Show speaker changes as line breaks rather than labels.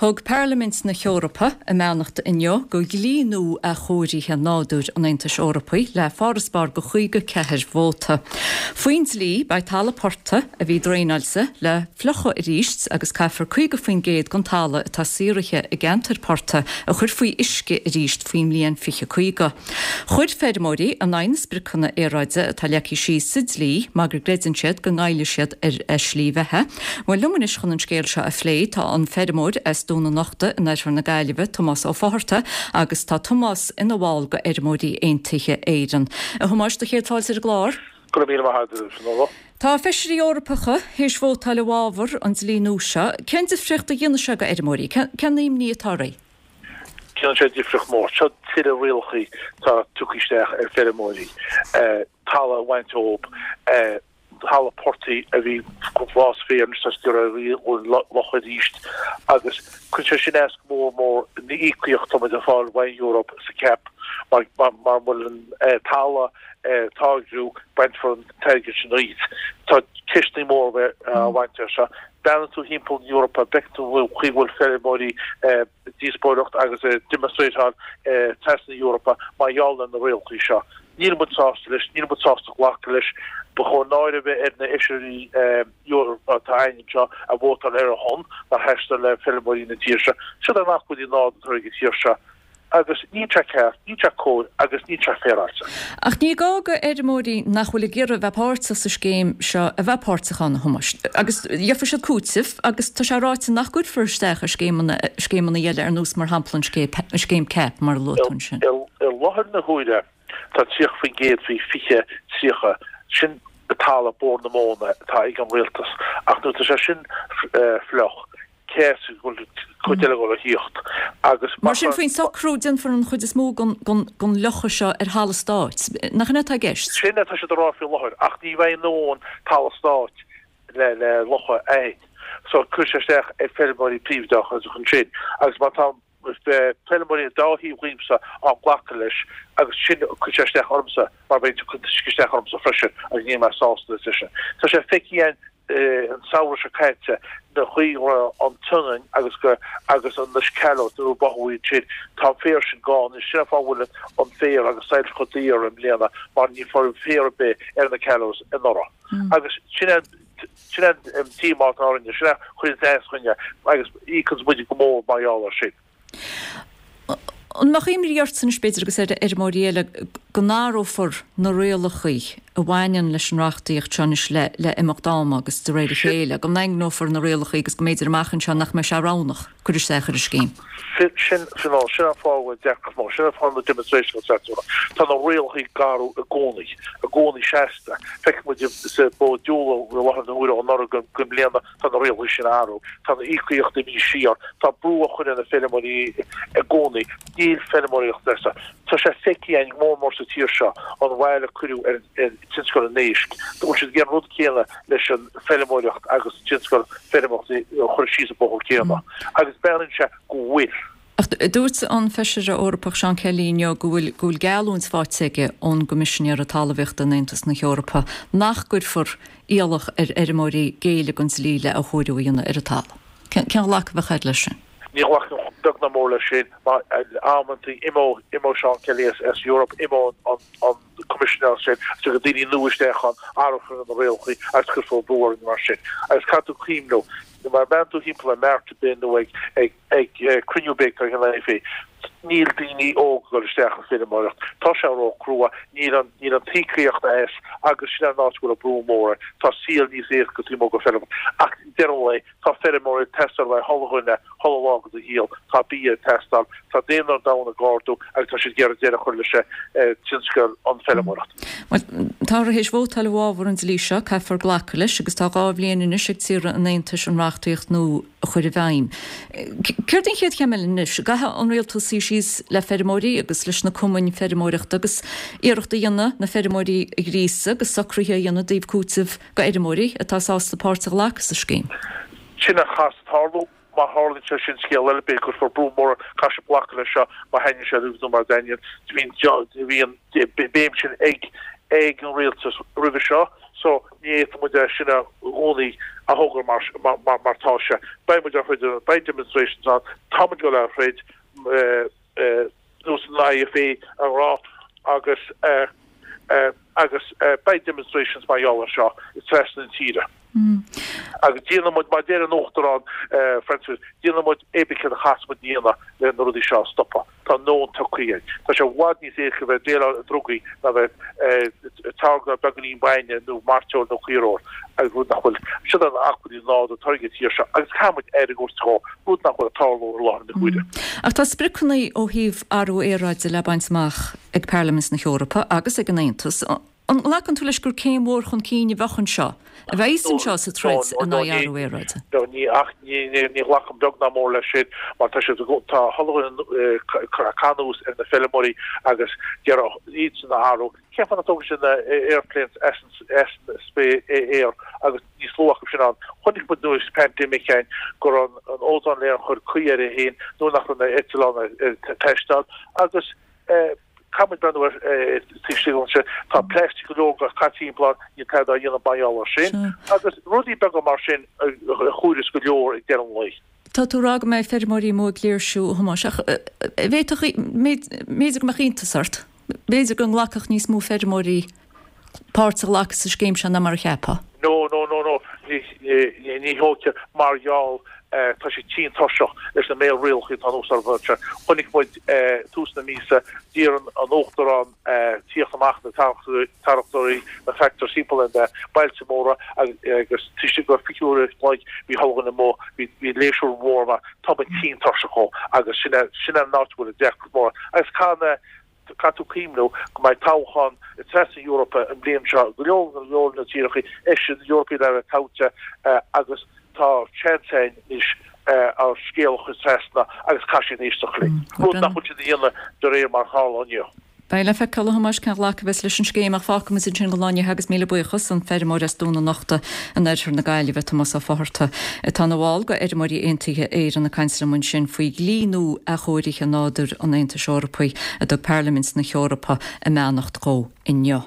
Thug Parlaimint na hEorpa a mbeannacht inniu do dhlí nua athchóirithe nádúir an Aontais Eorpaigh le farasbarr de 54 vóta. Faoin dlí, beidh talamh portaigh a bhí draenáilte le fliuchadh arís agus caithfear 50% den talamh atá saothraithe i gceantair portaigh a chur faoi uisce arís faoin mbliain 2050. Chuir feirmeoirí in aghaidh na spriocanna aeráide atá leagtha síos sa dlí mar go gcreideann siad go ngoillfidh siad ar a slí bheatha. Bhuel, liom anois chun an scéal seo a phlé tá an feirmeoir as Dún an Uchta in oirthear na Gaillimhe, Tomás Ó Fátharta, agus tá Tomás ina bhall de Fheirmeoirí Aontaithe Éireann. A Thomáis, do chéad fáilte ar an gclár.
Go raibh míle maith agat, a Fionnuala.
Tá feisirí Eorpacha théis vótáil i bhfabhar an dlí nua seo. Cén difríocht a dhéanfaidh sé do fheirmeoirí? Cén imní atá oraibh?
Déanann sé difríocht mór. Seo tuilleadh rialachaí atá tugtha isteach ar feirmeoirí, talamh a bhaint ób, talamh portaigh a bhí glas féir anois tá siad ag iarraidh a fhliuchadh arís agus cuireann sé sin as go mór mór na íocaíocht atá muid ag fáil ón Eoraip sa CAP mar mura bhfuil an talamh ag táirgiú bainfear an t-airgead sin díot. Tá ceisteanna móra á bhaint as seo. Breathnaíonn tú thimpeall na hEorpa, bhfeiceann tú an chaoi a bhfuil feirmeoirí ag díospóireacht agus ag demonstrateáil trasna na hEorpa mar gheall ar na rialacha seo. Níl muid sásta leis, níl muid sásta glacadh leis. Ba chóir náire a bheith ar na Fheisirí Eorpacha atá againn anseo a vótáil ar a shon, nár sheas le feirmeoirí na tíre seo. Siod an acmhainní nádúrtha ag an tír seo. Agus níl sé ceart, níl sé cóir agus níl sé féaráilte.
Ach ní gá go fheirmeoirí nach bhfuil ag iarraidh a bheith páirteach sa scéim seo a bheith páirteach ann, a Thomáis. Agus gheofaidh siad cúiteamh agus tá sé ráite nach gcuirfear isteach ar scéimeanna, scéimeanna eile ar nós mar shampla an scéim CAP mar a luaigh tú ansin.
I láthair na huaire tá 30% faoi 20, 30, sin talamh Bord na Móna atá ag an rialtas ach nuair atá sé sin fliuch, cé as a bhfuil cuid eile ag dul a thíocht
agus Mar sin, faoin socrú, déanfar an chuid is mó den fhliuchadh seo ar thalamh stáit. Nach in é atá i gceist?
Sin atá siad a rá faoi láthair, ach ní bheidh a ndóthain talamh stáit le le fliuchadh a fhad. So cuirfidh sé isteach ar feirmeoirí príobháideacha ansin agus má tá feirmeoirí an dá thaobh dhíomsa á nglacadh leis agus sin cuirfidh sé isteach ormsa mar beidh sé ag cur isteach ormsa freisin agus níl mé sásta leis sin. Tá sé feicthe againn an samhradh seo caite na chaoi a raibh an tSionainn agus go agus an na callows nuair a báthadh iad sin tá an féar sin gann anois sin an fáth a bhfuil an féar agus silage chomh daor i mbliana mar ní raibh féar ar bith ar na callows anuraidh agus sin an Sin é an díomá atá orainne, sin é a chuireann as dúinne agus íocann muid go mór mar gheall air sin.
An mbeadh imní ortsa anois, b'fhéidir, agus ar fheirmeoirí eile, go n-athrófar na rialacha a bhaineann leis an reachtaíocht seo anois le imeacht ama agus de réir a chéile, go ndaingneofar na rialacha agus go mb'fhéidir amach anseo nach mbeidh sé roghnach cur isteach ar an scéim?
Sin, sin, sin an fáth a bhfuil deacracht mór, sin an fáth na demonstrations atá ann. Tá na rialacha ag athrú i gcónaí, i gcónaí seasta. Feiceann muid sa bó diúl i láthair na huaire ó anuraidh go i mbliana tá na rialacha sin ag athrú. Tá na íocaíochtaí imithe siar. Tá brú á chur ar na feirmeoirí i gcónaí. Níl feirmeoireacht éasca. Tá sé feicthe againn mór mór sa tír seo an bhail a cuireadh ar tionscal an éisc. Bhfuil siad ag déanamh an rud céanna leis an feirmeoireacht agus tionscal feirmeoireachta a chur síos an bóthar céanna agus breathnaíonn sé go bhfuil.
Ach dúirt an Feisire Eorpach Seán Kelly inniu go bhfuil go bhfuil geallúint faighte aige ón gCoimisinéara Talmhaíochta in Aontas na hEorpa nach gcuirfear iallach ar fheirmeoirí géilleadh don dlí le athchóiriú a dhéanamh ar an talamh. Cén ghlacadh a bheadh agat leis sin?
Ní ghlacfainn beag ná mór leis sin mar amantaí imeoidh imeoidh Seán Kelly as as Europe, imeoidh an an Coimisinéir sin, tiocfaidh daoine nua isteach ann, athrófar na rialacha agus cuirfear brú orainn mar sin. Agus caithfidh tú cuimhniú, má bhreathnaíonn tú thimpeall ar mart ar bith nó ag ag ag cruinniú ar bith atá ag an IFA, níl daoine óga ag dul isteach sa feirmeoireacht. Tá sé ró-chrua, níl an níl an t-íocaíocht as agus sin an áit a bhfuil an brú mór air. Tá saol níos éasca taobh amuigh den feirm. Ach deireadh an lae, Tá feirmeoirí ag teastáil le chuile dhuine, chuile lá de do shaol. Tá bia ag teastáil. Tá daonra an domhain ag ardú agus tá siad ag iarraidh deireadh a chur leis tionscal an feirmeoireacht.
Bhuel, táthar théis vótáil i bhfabhar an dlí seo, caithfear glacadh leis agus tá 2 bhliain anois ag tíortha an Aontais an reachtaíocht nua a chur i bhfeidhm. Céard an chéad chéim eile anois? Caithfidh an rialtas suí síos le feirmeoirí agus leis na cumainn feirmeoireachta agus iarracht a dhéanamh na feirmeoirí a ghríosadh agus socruithe a dhéanamh i dtaobh cúiteamh go fheirmeoirí atá sásta páirt a ghlacadh sa scéim.
Sin a chaithfeas tarlú. Má tharlaíonn sé sin, scéal eile, b'fhéidir go gcuirfear brú mór, caithfidh siad glacadh leis seo, má thaitníonn sé leo nó mura dtaitníonn. Bhí an béim sin ag an rialtas roimhe seo. So ní fhéadfaidh muid é sin i gcónaí a thogra mar mar tá sé. Beidh muid á throid, beidh demonstrations ann, tá muid ag dul á throid nós an IFA a rá agus agus beidh demonstrations mar gheall air seo trasna na tíre. Agus déanfaidh muid, mar a deir an Uachtarán Francis, déanfaidh muid pé ar bith céard a chaithfeas muid a dhéanamh le na rudaí seo a stopadh. Tá a ndóthain tugtha againn. Tá sé i bhfad níos éasca bheith ag déileáil le drugaí ná bheith ag táirgeadh beagáinín bainne nó mairteoil nó caoirfheoil, agus rud nach bhfuil. Siod an acmhainn nádúrtha atá ag an tír seo agus caithfidh muid aire a thabhairt dhó, rud nach bhfuil ag tarlú i láthair na huaire.
Ach tá spriocanna ó thaobh athrú aeráide le baint amach ag Parlaimint na hEorpa agus ag an Aontas. An nglacann tú leis gur céim mhór chun cinn a bheadh anseo, a bheas anseo sa troid in aghaidh athrú aeráide?
No, ní, ach ní, ní, ní ghlacaim beag ná mór leis sin mar tá siad, tá chuile dhuine ag cur anuas ar na feirmeoirí agus d'iarraidh iadsan a athrú. Cén fáth nach dtógann siad na airplanes as an, as an aer agus níos lú acu sin ann. Chonaic muid nuair pandemic againn go raibh an ozone layer ag cur caoi air féin nuair nach raibh na eitleáin ag taisteal agus eh, Caithfidh muid breathnú ar taobh istigh anseo. Tá plastic go leor caite timpeall ann, níl tada á dhéanamh mar gheall air sin. Agus rudaí beaga mar sin a chomhaireas go leor ag deireadh an lae.
Tá tú ag rá go mbeidh feirmeoirí amuigh ag léirsiú, a Thomáis, ach bhféadfadh, b'fhéidir go mbeadh iontas ort, b'fhéidir go nglacfadh níos mó feirmeoirí páirt a ghlacadh sa scéim seo ná mar a cheapfá.
No, no, no, no, ní dócha mar gheall tá siad tinn tuirseach leis na méid rialacha atá anuas orthu anseo. Chonaic muid tús na míosa, d'iarr an Uachtarán tíocht amach na tarractóirí, na tractors timpeall ar na bailte móra agus taobh istigh de 20 uair an chloig bhí chuile dhuine amuigh, bhí léirsiú mór ann. Tá muid tinn tuirseach dhó agus sin sin an áit a bhfuil an deacracht mór agus caithfidh na Caithfidh tú cuimhniú go mbeidh toghchán trasna na hEorpa an bhliain seo, go leor go leor na tíortha Fheisirí Eorpaigh le bheith toghte agus tá seans againn anois ár scéal a chur trasna agus caithfidh siad éisteacht linn, rud nach bhfuil siad a dhéanamh de réir mar a tharla inniu.
Beidh le feiceáil, a Thomáis, cén ghlacadh a bheas leis an scéim ach fágfaidh muid ansin don lá inniu agus míle buíochas, an feirmeoir as Dún an Uchta in oirthear na Gaillimhe, Tomás Ó Fátharta, atá ina bhall de Fheirmeoirí Aontaithe Éireann ag caint liom ansin faoi dhlí nua athchóirithe nádúir an Aontais Eorpaigh a dtug Parlaimint na hEorpa a mbeannacht dhó inniu.